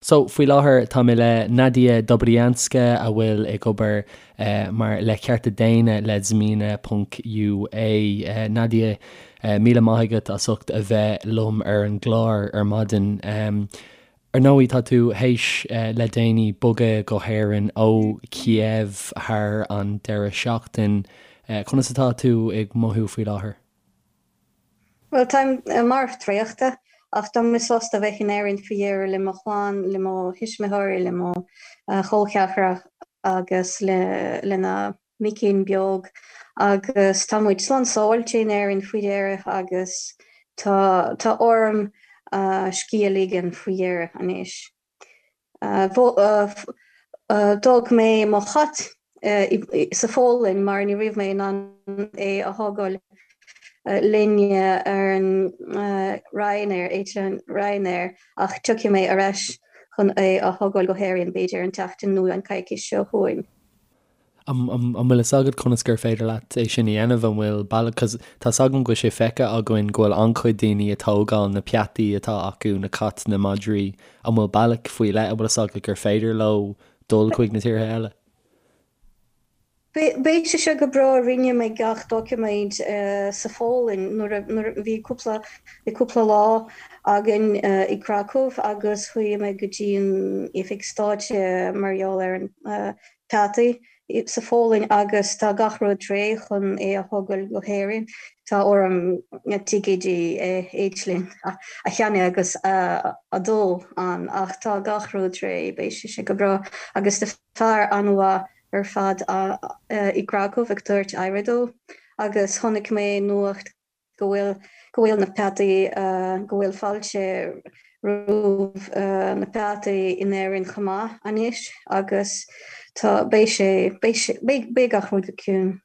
So, faoi láthair tá mé le Nadia Dobrianska a bhfuil ag obair mar le cearta daonna le Zmina ponc UA. Nadia, míle maith agat as ucht a bheith liom ar an gclár ar maidin. Ar ndóigh tá tú théis le déanaí bogadh go hÉirinn ó Kiev thar an deireadh seachtain. Conas atá tú ag mothú faoi láthair? Bhuel, táim marbh traochta, ach tá mé sásta bheith in Éirinn faoi dheireadh le mo chlann, le mo thuismitheoirí, le mo chol ceathracha agus lena micín beag. Agus tá muid slán sábháilte in Éirinn faoi dheireadh agus tá tá orm scíth a ligean faoi dheireadh anois. D'fhág mé mo chat sa Pholainn mar ní raibh mé in ann é a thógáil linn ar an Ryanair, eitleán Ryanair, ach tiocfaidh mé ar ais chun é a thógáil go hÉirinn b'fhéidir an tseachtain nó an coicís seo chugainn. An bhfuil fhios agat conas gur féidir leat é sin a dhéanamh? An bhfuil bealach, cos tá 's agam go bhfuil sé feicthe againn go bhfuil an-chuid daoine ag tógáil na peataí atá acu, na cait, na madraí, an bhfuil bealach faoi leith, an bhfuil fhios agat gur féidir leo dul chuig na tíortha eile? Beidh sé seo go breá, rinne mé gach doiciméid sa Pholainn nuair a bhí cúpla bhí cúpla lá againn i Kraków agus chuaigh mé go dtí an oifig stáit mar gheall ar an peataí sa Pholainn agus tá gach rud réidh chun é a thógáil go hÉirinn. Tá orm ticéidí eitleáin a cheannach agus a dul ann ach tá gach rud réidh, beidh sé seo go breá agus tá fear an-mhaith ar fad i gCracow ag tabhairt aire dó agus chonaic mé nuacht go bhfuil go bhfuil na peataí go bhfuil fáilte roimh na peataí in Éirinn chomh maith anois agus tá beidh sé beidh sé beidh beidh gach rud go ciúin.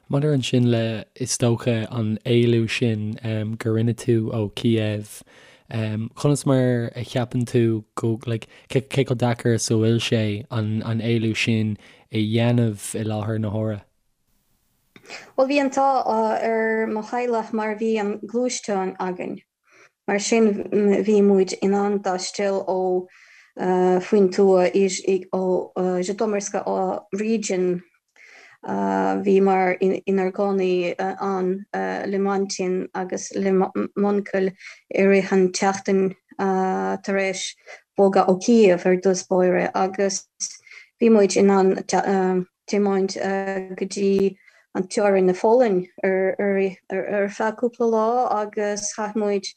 Maidir ansin le, is dócha, an éalú sin gur rinne tú ó Kiev, conas mar a cheapann tú go, like, cé chomh deacair is a bhfuil sé an éalú sin a dhéanamh i láthair na huaire? Bhuel, bhí an t-ádh ar mo theaghlach mar bhí an gluaisteán againn. Mar sin bhí muid in ann taisteal ó faoin tuath ó Zhytomyrska region. Bhíomar inár gcónaí ann le m'aintín agus le m'uncail i rith an tseachtain tar éis bogadh ó Kiev ar dtús báire agus bhí muid in ann tiomáint go dtí an teorainn na Pholainn ar feadh cúpla lá agus chaith muid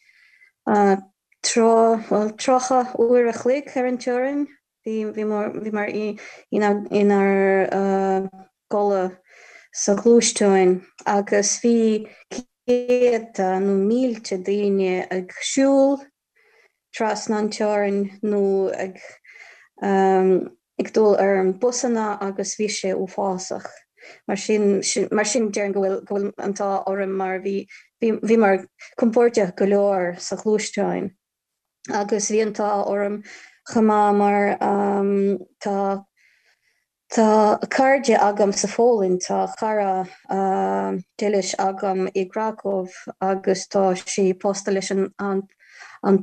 tráth, bhuel, 30 uair a chloig ar an teorainn. Bhíomar inár gcodladh sa ghluaisteáin agus bhí céadta nó mílte daoine ag siúl trasna an teorainn nó ag ag dul ar an busanna agus bhí sé uafásach. Mar sin mar sin déarfainn go bhfuil go bhfuil an t-ádh orm mar bhí bhí bhíomar compordach go leor sa ghluaisteáin agus bhí an t-ádh orm chomh maith mar tá Tá cairde agam sa Pholainn, tá cara dílis agam i gCracow agus tá sí pósta leis an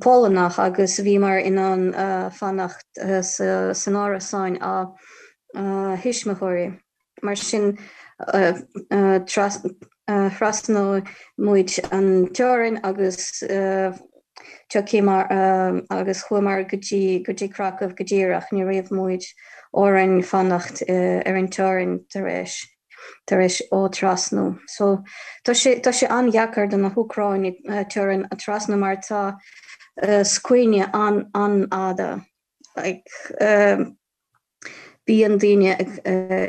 Polannach agus bhíomar in ann fanacht san árasáin a thuismitheoirí. Mar sin thrasnaigh muid an teorainn agus tiocfaidh agus chuamar go dtí go dtí Kraków go díreach. Ní raibh muid orainn fanacht ar an teorainn tar éis tar éis ó trasnú. So tá sé tá sé an-dheacair do na hÚcráinigh teorainn a trasnú mar tá scuaine an an-fhada. Like Bíonn daoine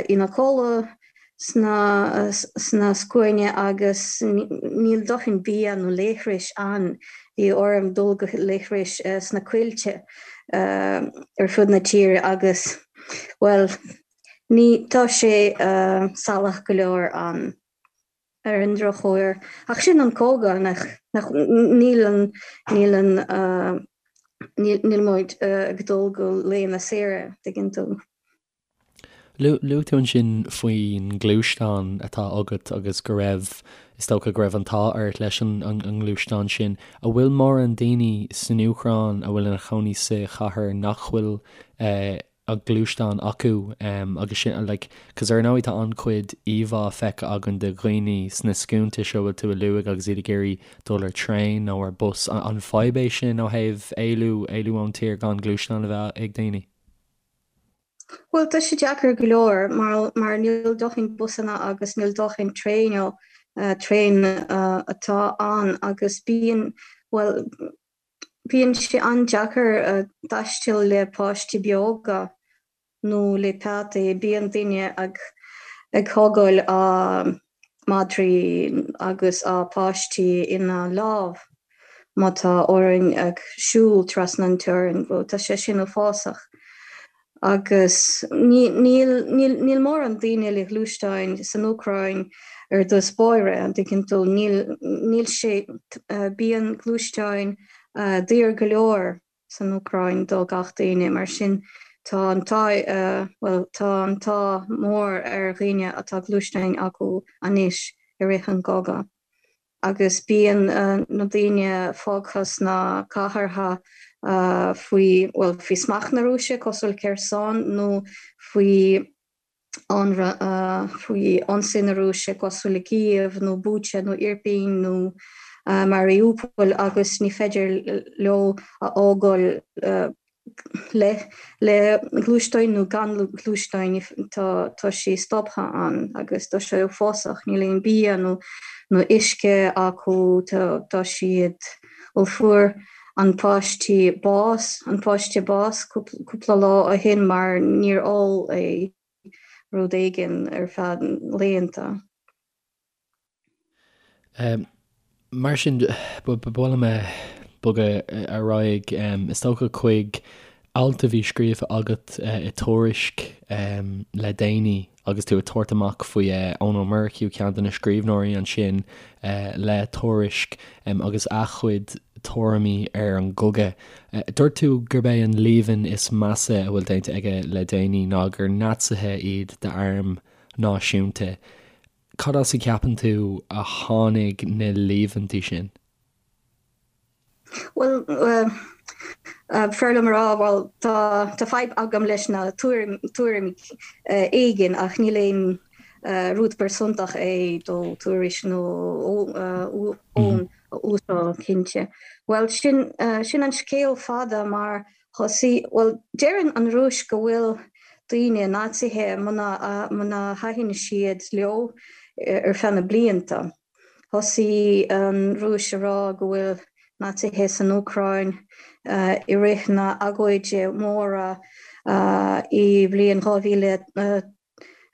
ina gcodladh sna scuainí agus níl dóthain bia nó leithris ann. Bhí orm dul go leithris sna coillte ar fud na tíre agus, bhuel, ní, tá sé salach go leor ann. Ar an drochuair. Ach sin an cogadh, nach, nach, níl an, níl an, níl, níl muid ag dul go laethanta saoire, tuigeann tú. Luaigh tú ansin faoin ngluaisteán atá agat agus go raibh, is dócha go raibh an t-ádh ort leis an ngluaisteán sin. An bhfuil mórán daoine san Úcráin a bhfuil ina chónaí sa chathair nach bhfuil an gluaisteán acu agus sin like cos ar ndóigh tá an-chuid íomhá feicthe againn de dhaoine sna scuainte seo a bhfuil tú a luaigh agus iad ag iarraidh dul ar traein nó ar bus. An fadhb é sin ó thaobh éalú, éalú ón tír gan gluaisteán a bheith ag daoine? Bhuel tá sé deacair go leor mar mar níl dóthain busanna agus níl dóthain traein traein atá ann agus bíonn bhuel Bíonn sé an-deacair taisteal le páistí beaga nó le peataí. Bíonn daoine ag thógáil a madraí agus a páistí ina lámh má tá orainn ag siúl trasna an teorainn. Tá sé sin uafásach. Agus níl mórán daoine le gluaisteáin san Úcráin ar dtús báire, an dtuigeann tú? Níl sé, bíonn gluaisteáin daor go leor san Úcráin do gach daoine, mar sin tá an t-ádh, bhuel, tá an t-ádh mór ar dhaoine atá gluaisteáin acu anois i rith an gcogadh. agus bíonn na daoine fágtha sna cathartha faoi, bhuel, faoi smacht na Rúise, cosúil Kherson, nó faoi faoi ionsaí na Rúise, cosúil le Kyiv nó Bucha nó Irpin nó Mariupol, agus ní féidir leo a fhágáil le le gluaisteáin nó gan gluaisteáin tá tá sé stoptha ann agus tá sé uafásach, níl aon bia nó nó uisce acu, tá tá siad bhuel fuair an páistí bás, an páiste bás cúpla lá ó shin mar níor ól é rud éigin ar feadh laethanta. Mar sin, ba mhaith liom bogadh ar aghaidh, is dócha, chuig alt a bhí scríofa agat i Tuairisc le déanaí agus tú ag tabhairt amach faoi Eoin Ó Murchú, ceann de na scríbhneoirí ansin le Tuairisc, agus a chuid tuairimí ar an gcogadh. Dúirt tú gurb é an líomhain is measa a bhfuil déanta aige le déanaí ná gur Naitsithe iad d'arm náisiúnta. Cad as a gceapann tú a tháinig na líomhaintí sin? Bhuel, b'fhearr liom a rá, bhuel, tá, tá fadhb agam leis na tuairimí éigin ach níl aon rud pearsantach é do Tuairisc nó Eoin a úsáid, cinnte. Bhuel, sin, sin an scéal fada mar Thosaigh, bhuel, deireann an Rúis go bhfuil daoine Naitsithe muna, muna thaitin siad leo ar feadh na blianta. Thosaigh an Rúis a rá go bhfuil Naitsithe san Úcráin i rith na agóide móra i bhliain 2000.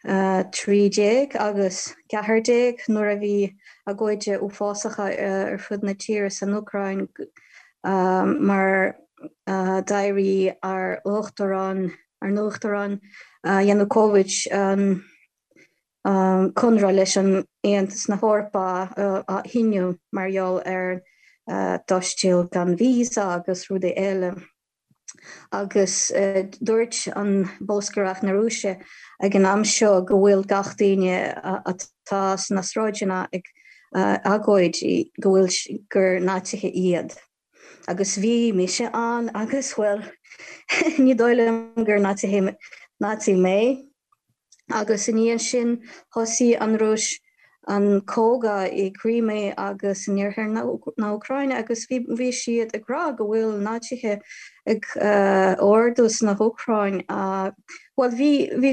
13 agus 14 nuair a bhí agóide uafásacha ar fud na tíre san Úcráin mar d'éirigh ár uachtarán, ár n-uachtarán Yanukovych an conradh leis an Aontas na hEorpa a shíniú mar gheall ar taisteal gan visa agus rudaí eile. Agus dúirt an bolscaireacht na Rúise ag an am seo go bhfuil gach daoine atá sna sráideanna ag agóid go bhfuil gur Naitsithe iad. Agus bhí mise ann agus bhuel ní dóigh liom gur Naitsithe Naitsi mé. Agus i ndiaidh sin thosaigh an Rúis an cogadh i gCrimea agus in iarthar na hÚcráine agus bhí siad ag rá go bhfuil Naitsithe ag ardú sna hÚcráin. Bhuel bhí bhí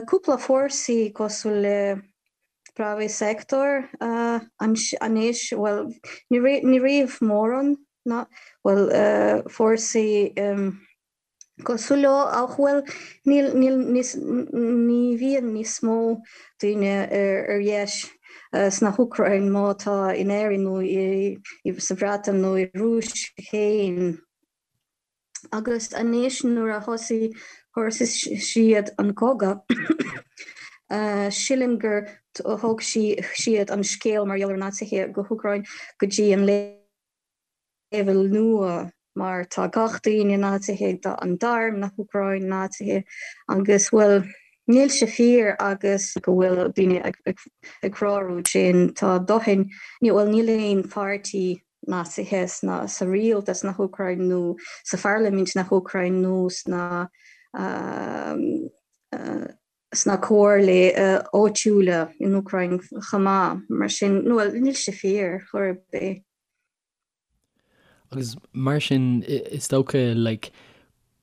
cúpla fórsaí cosúil le Pravy Sektor anois, bhuel ní raibh mórán ná bhuel fórsaí cosúil leo ach bhuel níl níl níos ní bhíonn níos mó daoine ar dheis sna hÚcráin má tá in Éirinn nó i sa Bhreatain nó i Rúis féin. Agus anois nuair a thosaigh thosaigh siad an cogadh sílim gur thóg siad an scéal mar gheall ar Naitsithe go hÚcráin go dtí an leibhéal nua mar tá gach daoine Naitsithe, tá an t-arm na hÚcráin Naitsithe agus bhuel Níl sé fíor agus go bhfuil daoine ag rá rud sin. Tá dóthain, bhuel níl aon pháirtí Naitsithe sna, sa rialtas na hÚcráin nó sa pharlaimint na hÚcráin nó sna sna comhairlí áitiúla in Úcráin chomh maith. Mar sin, bhuel níl sé fíor chor ar bith. Agus mar sin, is dócha, like,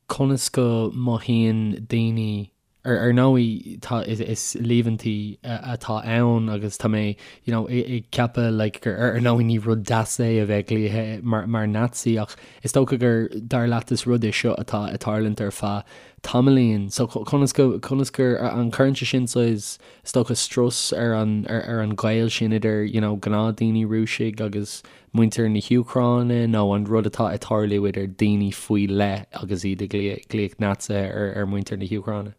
conas go mothaíonn daoine, ar ar ndóigh, tá, is líomhaintí atá ann agus tá mé, you know, ag ceapadh, like, gur ar ndóigh ní rud deas é a bheith glaoithe mar, mar Nazi ach is dócha gur, dar leat, is rud é seo atá ag tarlúint ar feadh tamaillín. So conas go, conas gur, an cuireann sé sin saghas, is dócha, strus ar an, ar an ghaol sin idir, you know, gnáthdaoine Rúisigh agus muintir na hÚcráine nó an rud atá ag tarlú idir daoine faoi leith agus iad ag glaoch Naitsithe ar mhuintir na hÚcráine?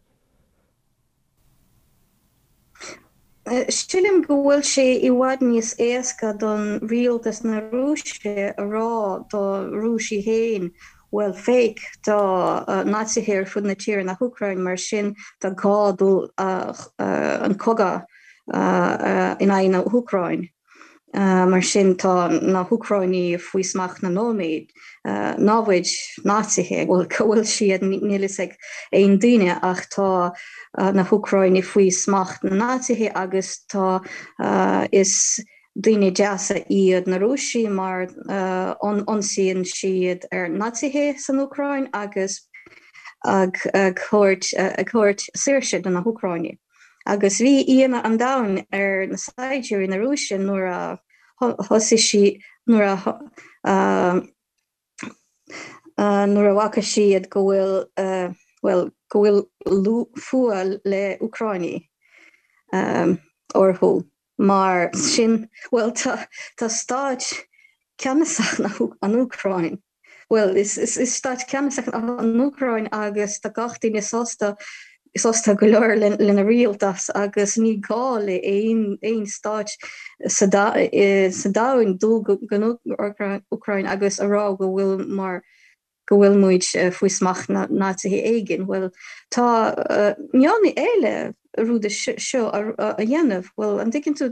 Sílim go bhfuil sé i bhfad níos éasca don rialtas na Rúise a rá do Rúisigh féin bhuel féach tá Naitsithe ar fud na tíre na hÚcráin mar sin tá gá dul an cogadh in aghaidh na hÚcráin. Mar sin tá na hÚcráinigh faoi smacht na nóiméad, námhaid, Naitsithe, bhuel cá bhfuil siad níl fhios ag aon duine ach tá na hÚcráinigh faoi smacht na Naitsithe agus tá is daoine deasa iad na Rúisigh mar ionsaíonn siad ar Naitsithe san Úcráin agus ag thabhairt ag thabhairt saoirse do na hÚcráinigh. Agus bhí ionadh an domhain ar na saighdiúirí na Rúise nuair a thosaigh sí, nuair a nuair a bhfaca siad go bhfuil, bhuel, go bhfuil fuath le Úcráinigh orthu. Mar sin, bhuel, tá tá stáit ceannasach na an Úcráin. Bhuel, is stát ceannasach an Úcráin agus tá gach duine sásta, sásta go leor lena rialtas agus ní gá le aon stát sa domhan dul go Úcráin agus a rá go bhfuil mar go bhfuil muid faoi smacht na Naitsithe éigin. Bhuel, tá meon eile rud seo a dhéanamh. Bhuel, an dtuigeann tú,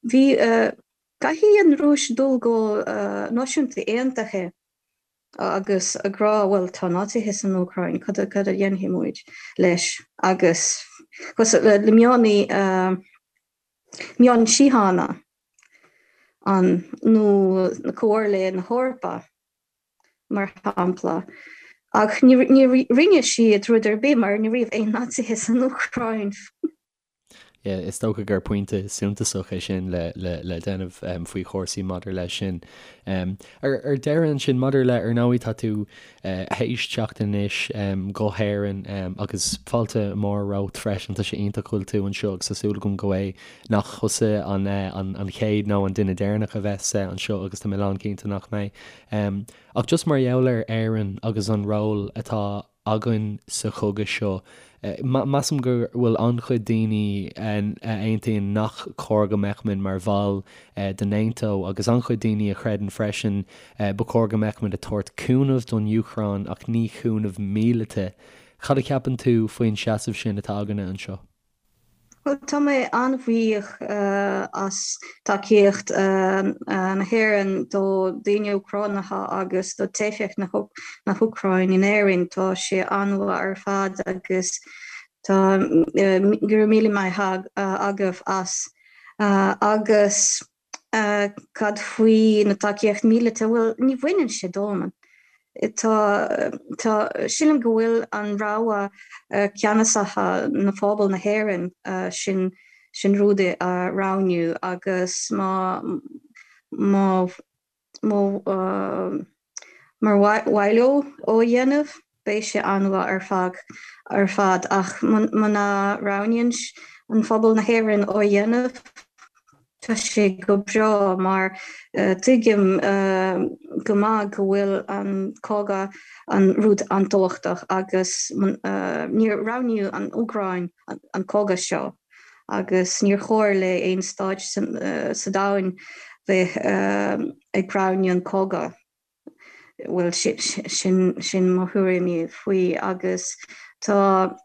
bhí Caithfidh an Rúis dul go Náisiúnta Aontaithe agus ag rá bhuel tá Naitsithe san Úcráin, cad a dhéanfaidh muid leis? Agus le meon meon síochána an nó na Comhairle na hEorpa mar shampla. Ach ní rinne siad rud ar bith mar ní raibh aon Naitsithe san Úcráin. Yeah, is dócha gur pointe suntasach é sin le le déanamh faoi chúrsaí maidir leis sin. Ar ar deireadh ansin, maidir le, ar ndóigh tá tú théis teacht anois go hÉirinn agus fáilte mhór romhat freisin, tá sé iontach go bhfuil tú anseo agus tá súil agam go é nach thusa an an chéad nó an duine deireanach a bheas anseo agus tá mé lánchinnte nach mbeidh. Ach just mar gheall ar Éirinn agus an ról atá againn sa chogadh seo. Measaim go bhfuil an-chuid daoine a aontaíonn nach cóir go mbeadh muid mar bhall de NATO agus an-chuid daoine a chreideann freisin ba chóir go mbeadh muid ag tabhairt cúnamh don Úcráin ach ní cúnamh míleata. Cad a cheapann tú faoin seasamh sin atá againne anseo? Bhuel, tá mé an-bhuíoch as tacaíocht na hÉireann do daoine Úcránacha agus do teifeach na hÚcráin in Éirinn. Tá sé an-mhaith ar fad agus tá go raibh míle maith agaibh as. Agus Cad faoi na tacaíocht míleata? Bhuel, ní bhaineann sé dom. Tá, tá, sílim go bhfuil an rogha ceannasacha na phobal na hÉireann sin, sin rud a roghnú agus má, má, má, Mar mhaith leo ó a dhéanamh, beidh sé an-mhaith ar fad ar fad ach muna roghnaíonn an phobal na hÉireann ó a dhéanamh, tá sé go breá mar tuigim go maith go bhfuil an cogadh an rud an-tábhachtach agus níor roghnaíodh an Úcráin an cogadh seo agus níor chóir le aon stáit sa domhan bheith ag roghnú an cogadh. Bhuel, sin, sin mo thuairimí faoi agus tá.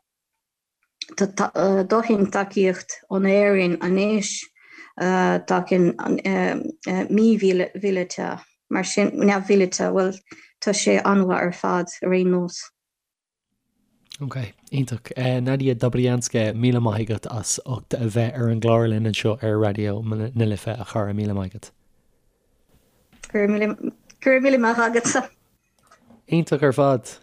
Tá dóthain tacaíocht ón Éirinn anois, tacaíonn mímhíleata, mar sin, neamh-mhíleata, bhuel, tá sé an-mhaith ar fad ar aon nós. Ok, iontach. Nadia Dobrianska, míle maith agat as ucht a bheith ar an gclár linn anseo ar Raidió na Life, a chara, míle maith agat. Go raibh míle maith agatsa. Iontach ar fad.